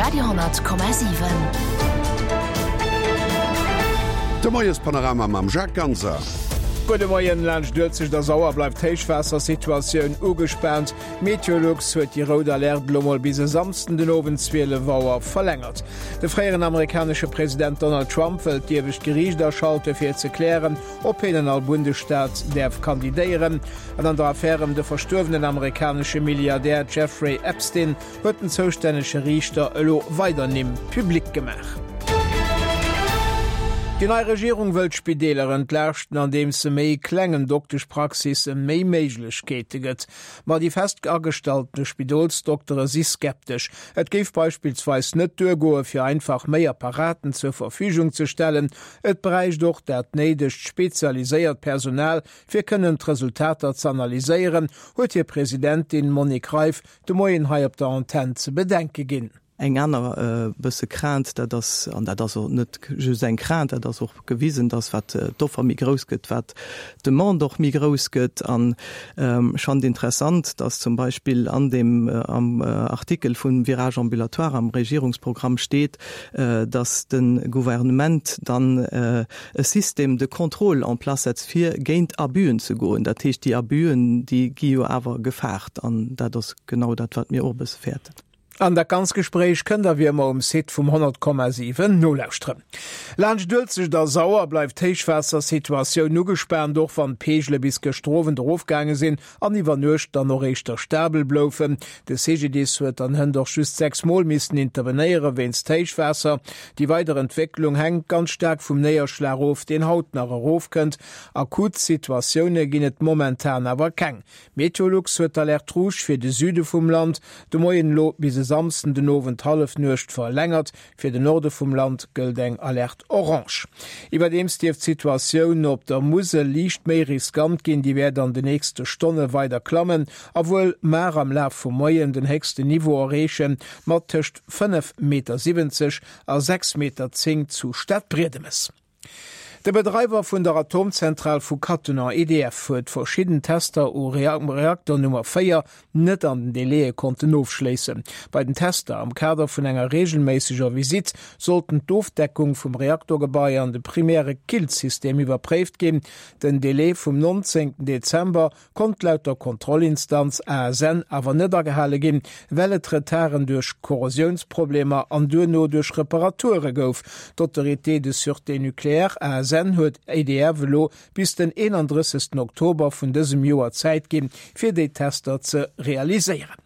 Radio 10,7. De Moiespanorama mam Jacques Ganser. Gudde Moien, Laanscht Uelzecht a Sauer bleift d'Héichwaassersituatioun ugespaant. Meteolux huet déi rout Alerte elo mol bis e Samsden den Owend 12 Auer verlängert. De fréieren amerikanesche President Donald Trump wëllt d'iewescht Geriicht aschalte fir ze klären, ob hien an all Bundesstaat däerf kandidéieren. An an der Affär ëm de verstuerwenen amerikanesche Milliardär Jeffrey Epstein huet den zoustännege Riichter elo weider Nimm public gemaach. Déi nei Regierung wëll d'Spideeler entlaaschten, andeems se méi klengen Dokteschpraxisse méi Méiglechkeete gëtt. Ma déi fest agestallte Spidolsdoktere si skeptesch. Et géif beispillsweis net duergoe fir einfach méi Apparaten zur Verfügung ze stellen. Et bräicht och dat néidegt spezialiséiert Personal, fir kënnen d'Resultater z'analyséieren, huet hir Presidentin Monique Reiff de Moien hei op der Antenn ze bedenke ginn. Eng aner bësse Crainte, dat ass, an dat ass och net just eng Crainte, dat ass och gewisen, dass wat d'Offer méi grouss gëtt, wat d'Demande och méi grouss gëtt. An ech fannen et interessant, dass zum Beispill an deem am Artikel vum Virage ambulatoire am Regierungsprogramm steet, dass de Gouvernement dann e Système de contrôle en place setzt, fir géint Abüen ze goen. Dat heescht, déi Abüen, déi gi jo awer gefaart. An dat ass genau dat, wat mir och e bësse fäerten. An dat ganz Gespréich kënnt der wéi ëmmer um Site vum 100,7 nolauschteren. Laanscht Uelzecht a Sauer bleift d'Héichwaassersituatioun ugespaant, och wann d'Peegele bis gëschter Owend erofgaange sinn an iwwer Nuecht dann och éischter stabel bloufen. De CGDIS huet dann hënt och just 6 Mol missen intervenéiere wéinst Héichwaasser. Déi weider Entwécklung hänkt ganz staark vum Néierschlag of, deen haut nach erofkënnt. Akut Situatioune ginn et momentan awer keng. Meteolux huet d'Alerte rouge fir de Süde vum Land de Moien elo bis e Samsden den Owend Hallefnuecht verlängert. Fir den Norde vum Land gëllt eng Alerte orange. Iwwerdeems dierft d'Situatioun op der Musel liicht méi riskant ginn. Déi wäert an de nächste Stonne weider klammen a wuel mar am Laf vum Moien den héchsten Niveau erreechen, mat tëscht 5,70 Meter a 6,10 Meter zu Stadbriedemes. De Bedreiwer vun der Atomzentral vu Cattenom, EDF, huet verschidden Tester u Reakter Nummer 4 net an den Délaië konnten ofschléissen. Bei den Tester am Kader vun enger reegelméisseger Visitt sollten d'Ofdeckung vum Reaktorgebai an de primäre Killsystem iwwerpréift ginn. Den Delai vum 19 Dezember konnt laut der Kontrollinstanz ASN awer net agehale ginn, well et Retarden duerch Korrosiounsproblemer an duerno duerch Reparature gouf. D'Autorité de sûreté nucléaire, ASN, huet EDF elo bis den 31. Oktober vun dësem Joer Zäit ginn, fir déi Tester ze realiséieren.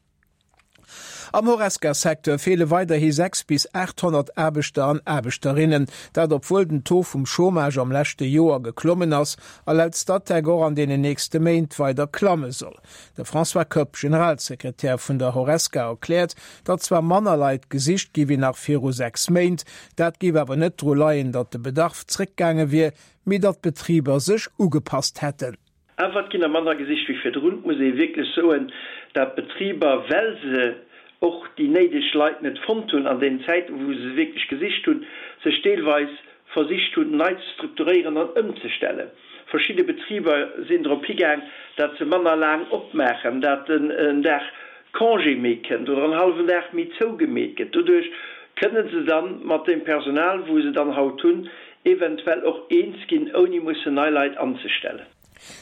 Am Horesca-Secteur feele weiderhi 6 bis 800 Aarbechter an Aarbechterinnen. Dat obwuel den Taux vum Chômage am leschte Joer geklommen ass a laut Statec och an deenen nächste Méint weider klamme soll. De François Koepp, Generalsekretär vun der Horesca, erkläert, datt zwar manner Leit gesicht gi wéi nach viru 6 Méint, dat géif awer net dru leien, datt de Bedarf zréckgaange wier, mee datt d'Betriber sech ugepasst hätten. Awer et ginn der manner gesicht wéi virdrun. Et muss ee wierklech soen, dat d'Betriber, well se och déi néideg Leit net fonnt hunn an deenen Zäiten, wou se se wierklech gesicht hunn, sech deelweis versicht hunn, nei ze strukturéieren an ëmzestellen. Verschidde Betriber sinn drop higaang, dat se manner laang opmaachen, dat en Dag Congé méi kënnt oder en hallwen Dag méi zougemeet gëtt. Doduerch kënne se dann mat deem Personal, wou se dann haut hunn, eventuell och eens ginn, ouni mussen nei Leit anzestellen.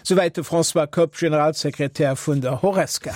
Souwäit de François Koepp, Generalsekretär vun der Horesca.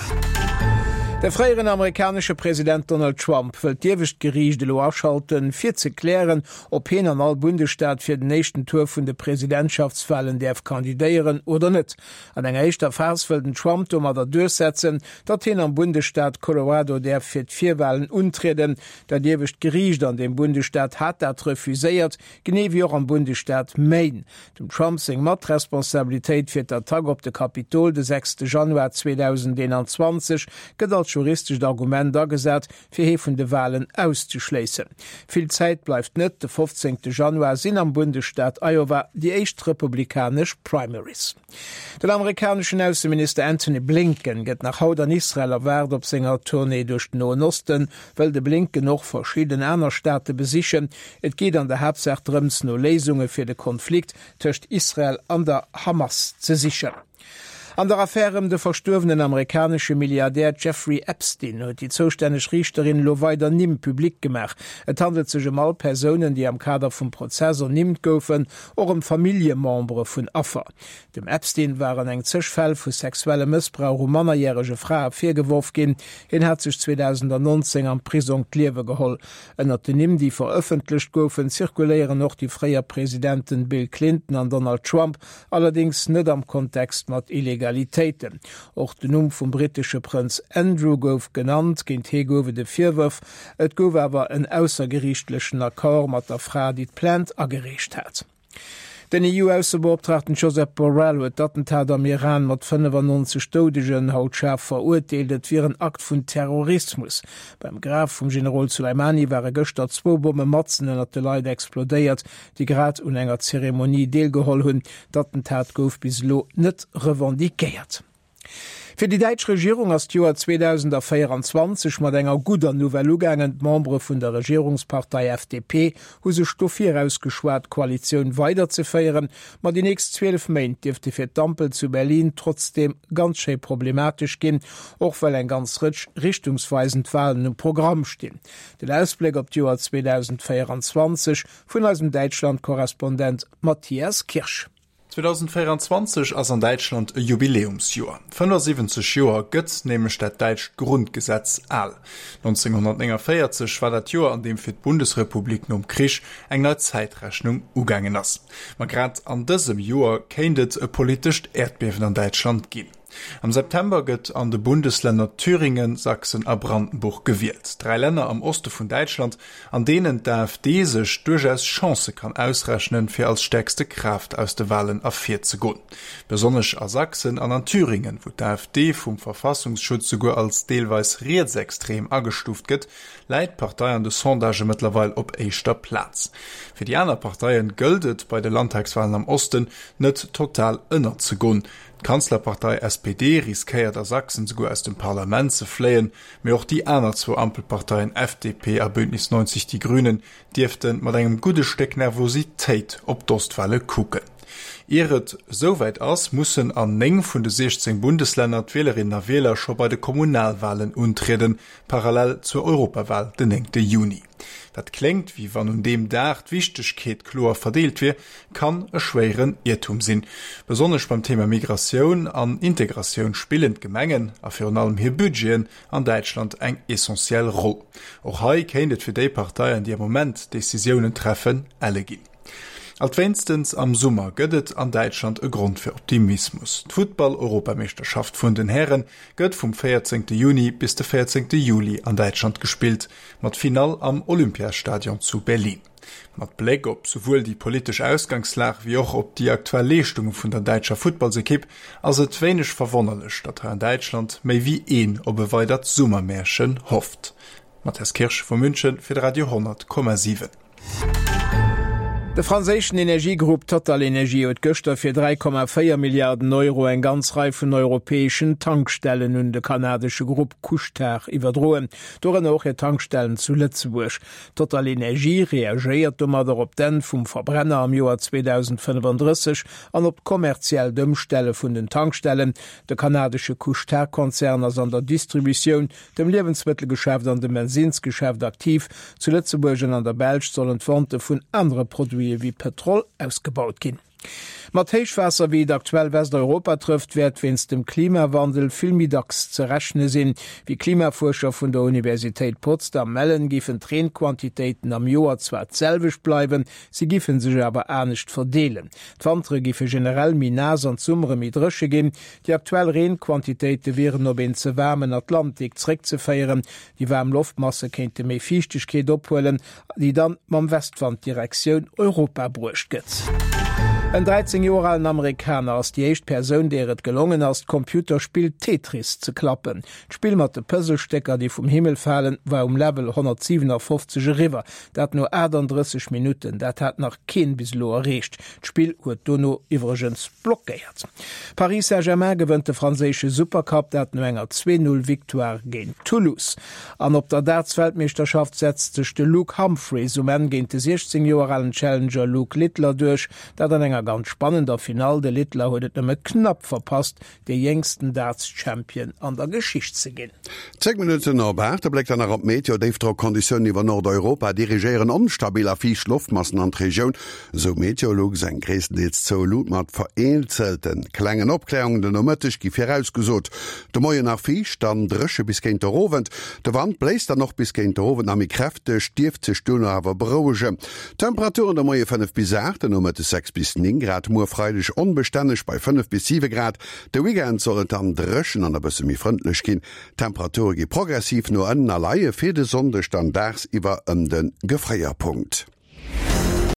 De fréieren amerikanesche President Donald Trump wëllt d'iewescht Geriicht elo aschalten, fir ze klären, ob hien an all Bundesstaat fir den éischten Tour vun de Presidentschaftswalen däerf kandidéieren oder net. An enger éischter Phas wëll den Trump domadder duerchsetzen, datt hien am Bundesstaat Colorado däerf fir d'Virwalen untrieden. Dat iewescht Geriicht an deem Bundesstaat hat dat refuséiert, genee wéi och am Bundesstaat Maine. Dem Trump seng Matresponsabilitéit fir d'Attack op de Kapitol de 6 Januar 2021 gëtt als juristescht Argument agesat, fir hee vun de Walen auszeschléissen. Vill Zäit bleift net, de 15 Januar sinn am Bundesstaat Iowa déi éischt republikanesch Primaries. Den amerikaneschen Ausseminister Antony Blinken gëtt nach haut an Israel erwaart. Op senger Tournée duerch den Noen Oste wëll de Blinken och verschidden aner Staate besichen. Et geet an der Haaptsaach drëms, no Léisunge fir de Konflikt tëscht Israel an der Hamas ze sichen. An der Affär ëm de verstuerwenen amerikanesche Milliardär Jeffrey Epstein huet déi zoustänneg Riichterin elo weider Nimm public gemaach. Et handelt sech ëm all Persounen, déi am Kader vum Prozess ernimmt goufen, och ëm Familljemembere vun Affer. Dem Epstein waren eng zeg Fäll vu sexuellem Mëssbrauch u mannerjärege Frae virgeworf ginn. Hien hat sech 2019 am Prisong d'Liewe geholl. Ënnert den Nimm, déi verëffentlecht goufen, zirkuléieren och déi fréier Presidenten Bill Clinton an Donald Trump, allerdéngs net am Kontext mat Illegalitéiten. Och den Numm vum brittesche Prënz Andrew gouf genannt. Géint hie gouf et e Virwërf. Et gouf awer en aussergeriichtlechen Accord mat der Fra, déi d'Plainte agereecht hat. Den EU-Aussebeoptraagten Josep Borrell huet d'Attentat am Iran mat 95 Doudegen haut schaarf verurteelt. Et wier en Akt vun Terrorismus. Beim Graf vum Generol Soleimani ware gëschter zwou Bomme matzen ënnert de Leit explodéiert, déi grad un enger Zeremonie deelgeholl hunn. D'Attentat gouf bis elo net revendiquéiert. Fir déi däitsch Regierung ass d'Joer 2024 mat enger gudder Nouvelle ugaangen. D'Membere vun der Regierungspartei FDP hu sech dofir ausgeschwat, d'Koalitioun weiderzeféieren. Ma déi nächst 12 Méint dierfte fir d'Ampel zu Berlin trotzdeem ganz schéi problematesch ginn, och well eng ganz Rëtsch richtungsweisend Walen um Programm stinn. Den Ausbléck op d'Joer 2024 vun eisem Däitschland-Korrespondent Matthias Kirsch. 2024 ass an Däitschland e Jubiläumsjoer. 75 Joer gëtt nämlech dat däitscht Grundgesetz al. 1949 war dat Joer, an deem fir d'Bundesrepublik nom Krich eng nei Zäitrechnung ugaangen ass. Ma grad an dësem Joer kéint et e politescht Äerdbiewen an Däitschland ginn. Am September gëtt an de Bundeslänner Thüringen, Sachsen a Brandenburg gewielt. Dräi Länner am Oste vun Däitschland, an deenen d'AfD sech duerchaus Chancë kann ausrechnen, fir als stäerkste Kraaft aus de Walen ervirzegoen. Besonnesch a Sachsen an an Thüringen, wou d'AfD vum Verfassungsschutz souguer als deelweis rietsextrem agestuuft gëtt, läit d'Partei an de Sondagë mëttlerweil op éischter Plaz. Fir déi aner Parteie gëllt et, bei de Landtagswalen am Osten net total ënnerzegoen. D'Kanzlerpartei SPD riskéiert a Sachsen souguer aus dem Parlament ze fléien, mee och déi aner zwou Ampelparteien FDP a Bündnis 90 Die Grünen dierfte mat engem gudde Stéck Nervositéit op d'Ostwale kucken. Ier et esouwäit ass, mussen an 9 vun de 16 Bundeslänner d'Wielerinnen a Wieler scho bei de Kommunalwalen untrieden, parallel zur Europawal den 9 Juni. Wat kléngt, wéi wann un deem Dag d'Wichtegkeet kloer verdeelt wier, kann e schwéieren Iertum sinn. Besonnesch beim Thema Migratioun an Integratioun spillen d'Gemengen, a virun allem hir Budgeten, an Däitschland eng essentiell Roll. Och hei kéint et fir déi Parteien, déi am Moment d'Decisiounen treffen, elle ginn. Alt wéinstens am Summer gëtt et an Däitschland e Grond fir Optimismus. D'Futtball-Europameeschterschaft vun den Häre gëtt vum 14 Juni bis de 14 Juli an Däitschland gespillt, mat Finall am Olympiastadion zu Berlin. Mat Bléck op souwuel déi politesch Ausgangslag wéi och op déi aktuell Leeschtunge vun der däitscher Futtballsekipp ass et wéineg verwonnerlech, datt hei an Däitschland méi wéi een op e weidert Summermärchen hofft. Matthias Kirsch vu München fir de Radio 10,7. De franséischen Energiegrupp TotalEnergies huet gëschter fir 3,4 Milliarden Euro eng ganz Rei vun europäeschen Tankstellen un de kanadesche Grupp Couche-Tard iwwerdroen, dorënner och hir Tankstellen zu Lëtzebuerg. TotalEnergies reagéiert domadder op d'Enn vum Verbrenner am Joer 2035 an op d'kommerziellt Ëmstelle vun den Tankstellen. De kanadesche Couche-Tard-Konzern ass an der Distributioun, dem Liewensmëttelgeschäft an dem Bensinnsgeschäft aktiv. Zu Lëtzebuerg an an der Belsch sollen d'Vente vun anere Produite wéi Pëtrol ausgebaut ginn. Mat Héichwaasser, wéi et aktuell Westeuropa trëfft, wäert wéinst dem Klimawandel vill méi dacks ze rechne sinn. Wéi Klimafuerscher vun der Universitéit Potsdam mellen, géifen d'Reenquantitéiten am Joer zwar d'selwecht bleiwen, si géife sech awer anescht verdeelen. D'Wantere géife generell méi naass an d'Summere méi dréche ginn. Déi aktuell Reenquantitéite wieren op een ze waarmen Atlantik zréckzeféieren. Déi waarm Loftmasse kéinte méi Fiichtegkeet ophuelen, déi dann mam Westwand Direktioun Europa bruecht gëtt. En 13 Joer alen Amerikaner ass déi éischt Persoun, deer et gelongen ass, d'Computerspill Tetris ze klappen. D'Spill mat de Puzzlestécker, déi vum Himmel falen, war um Level 157 eriwwer, dat no 38 Minutten. Dat hat nach keen bis elo erreecht. D'Spill huet dono iwwregens blockéiert. Paris Saint-Germain gewënnt de franséische Supercup, dat no enger 2 Null Victoire géint Toulouse. An op der Darts-Weltmeeschterschaft setzt sech de Luke Humphries um Enn géint de 16 Joer alen Challenger Luke Littler duerch, dat an enger. ganz spannender Finall. De Littler huet et nëmme knapp verpasst, dee jéngsten Darts-Champion an der Geschicht ze ginn. 10 Minutten op 8, e Bléck dann nach op d'Meteo, Déifdrockonditiounen iwwer Nordeuropa dirigéieren onstabil a fiicht Loftmassen an d'Regioun, esou Meteolux. Eng gréisstendeels zoue Luut mat vereenzelte klengen Opklärungen den Nomëtteg gi virausgesot. De Moien nach fiicht, dann dréche bis géint der Owend. De Wand bléist dann och bis géint der Owend nach méi kräfteg, dierft sech duerno awer berouegen. Temperaturen de Moie 5 bis 8, den Nomëttes 6 bis 9 Grad, muer Freideg onbestänneg bei 5 bis 7 Grad. De Weekend soll et dann dréchen an e bësse méi frëndlech ginn. D'Temperature gi progressiv no ënnen a leie fir de Sonndeg dann dagsiwwer ëm de Gefréierpunkt.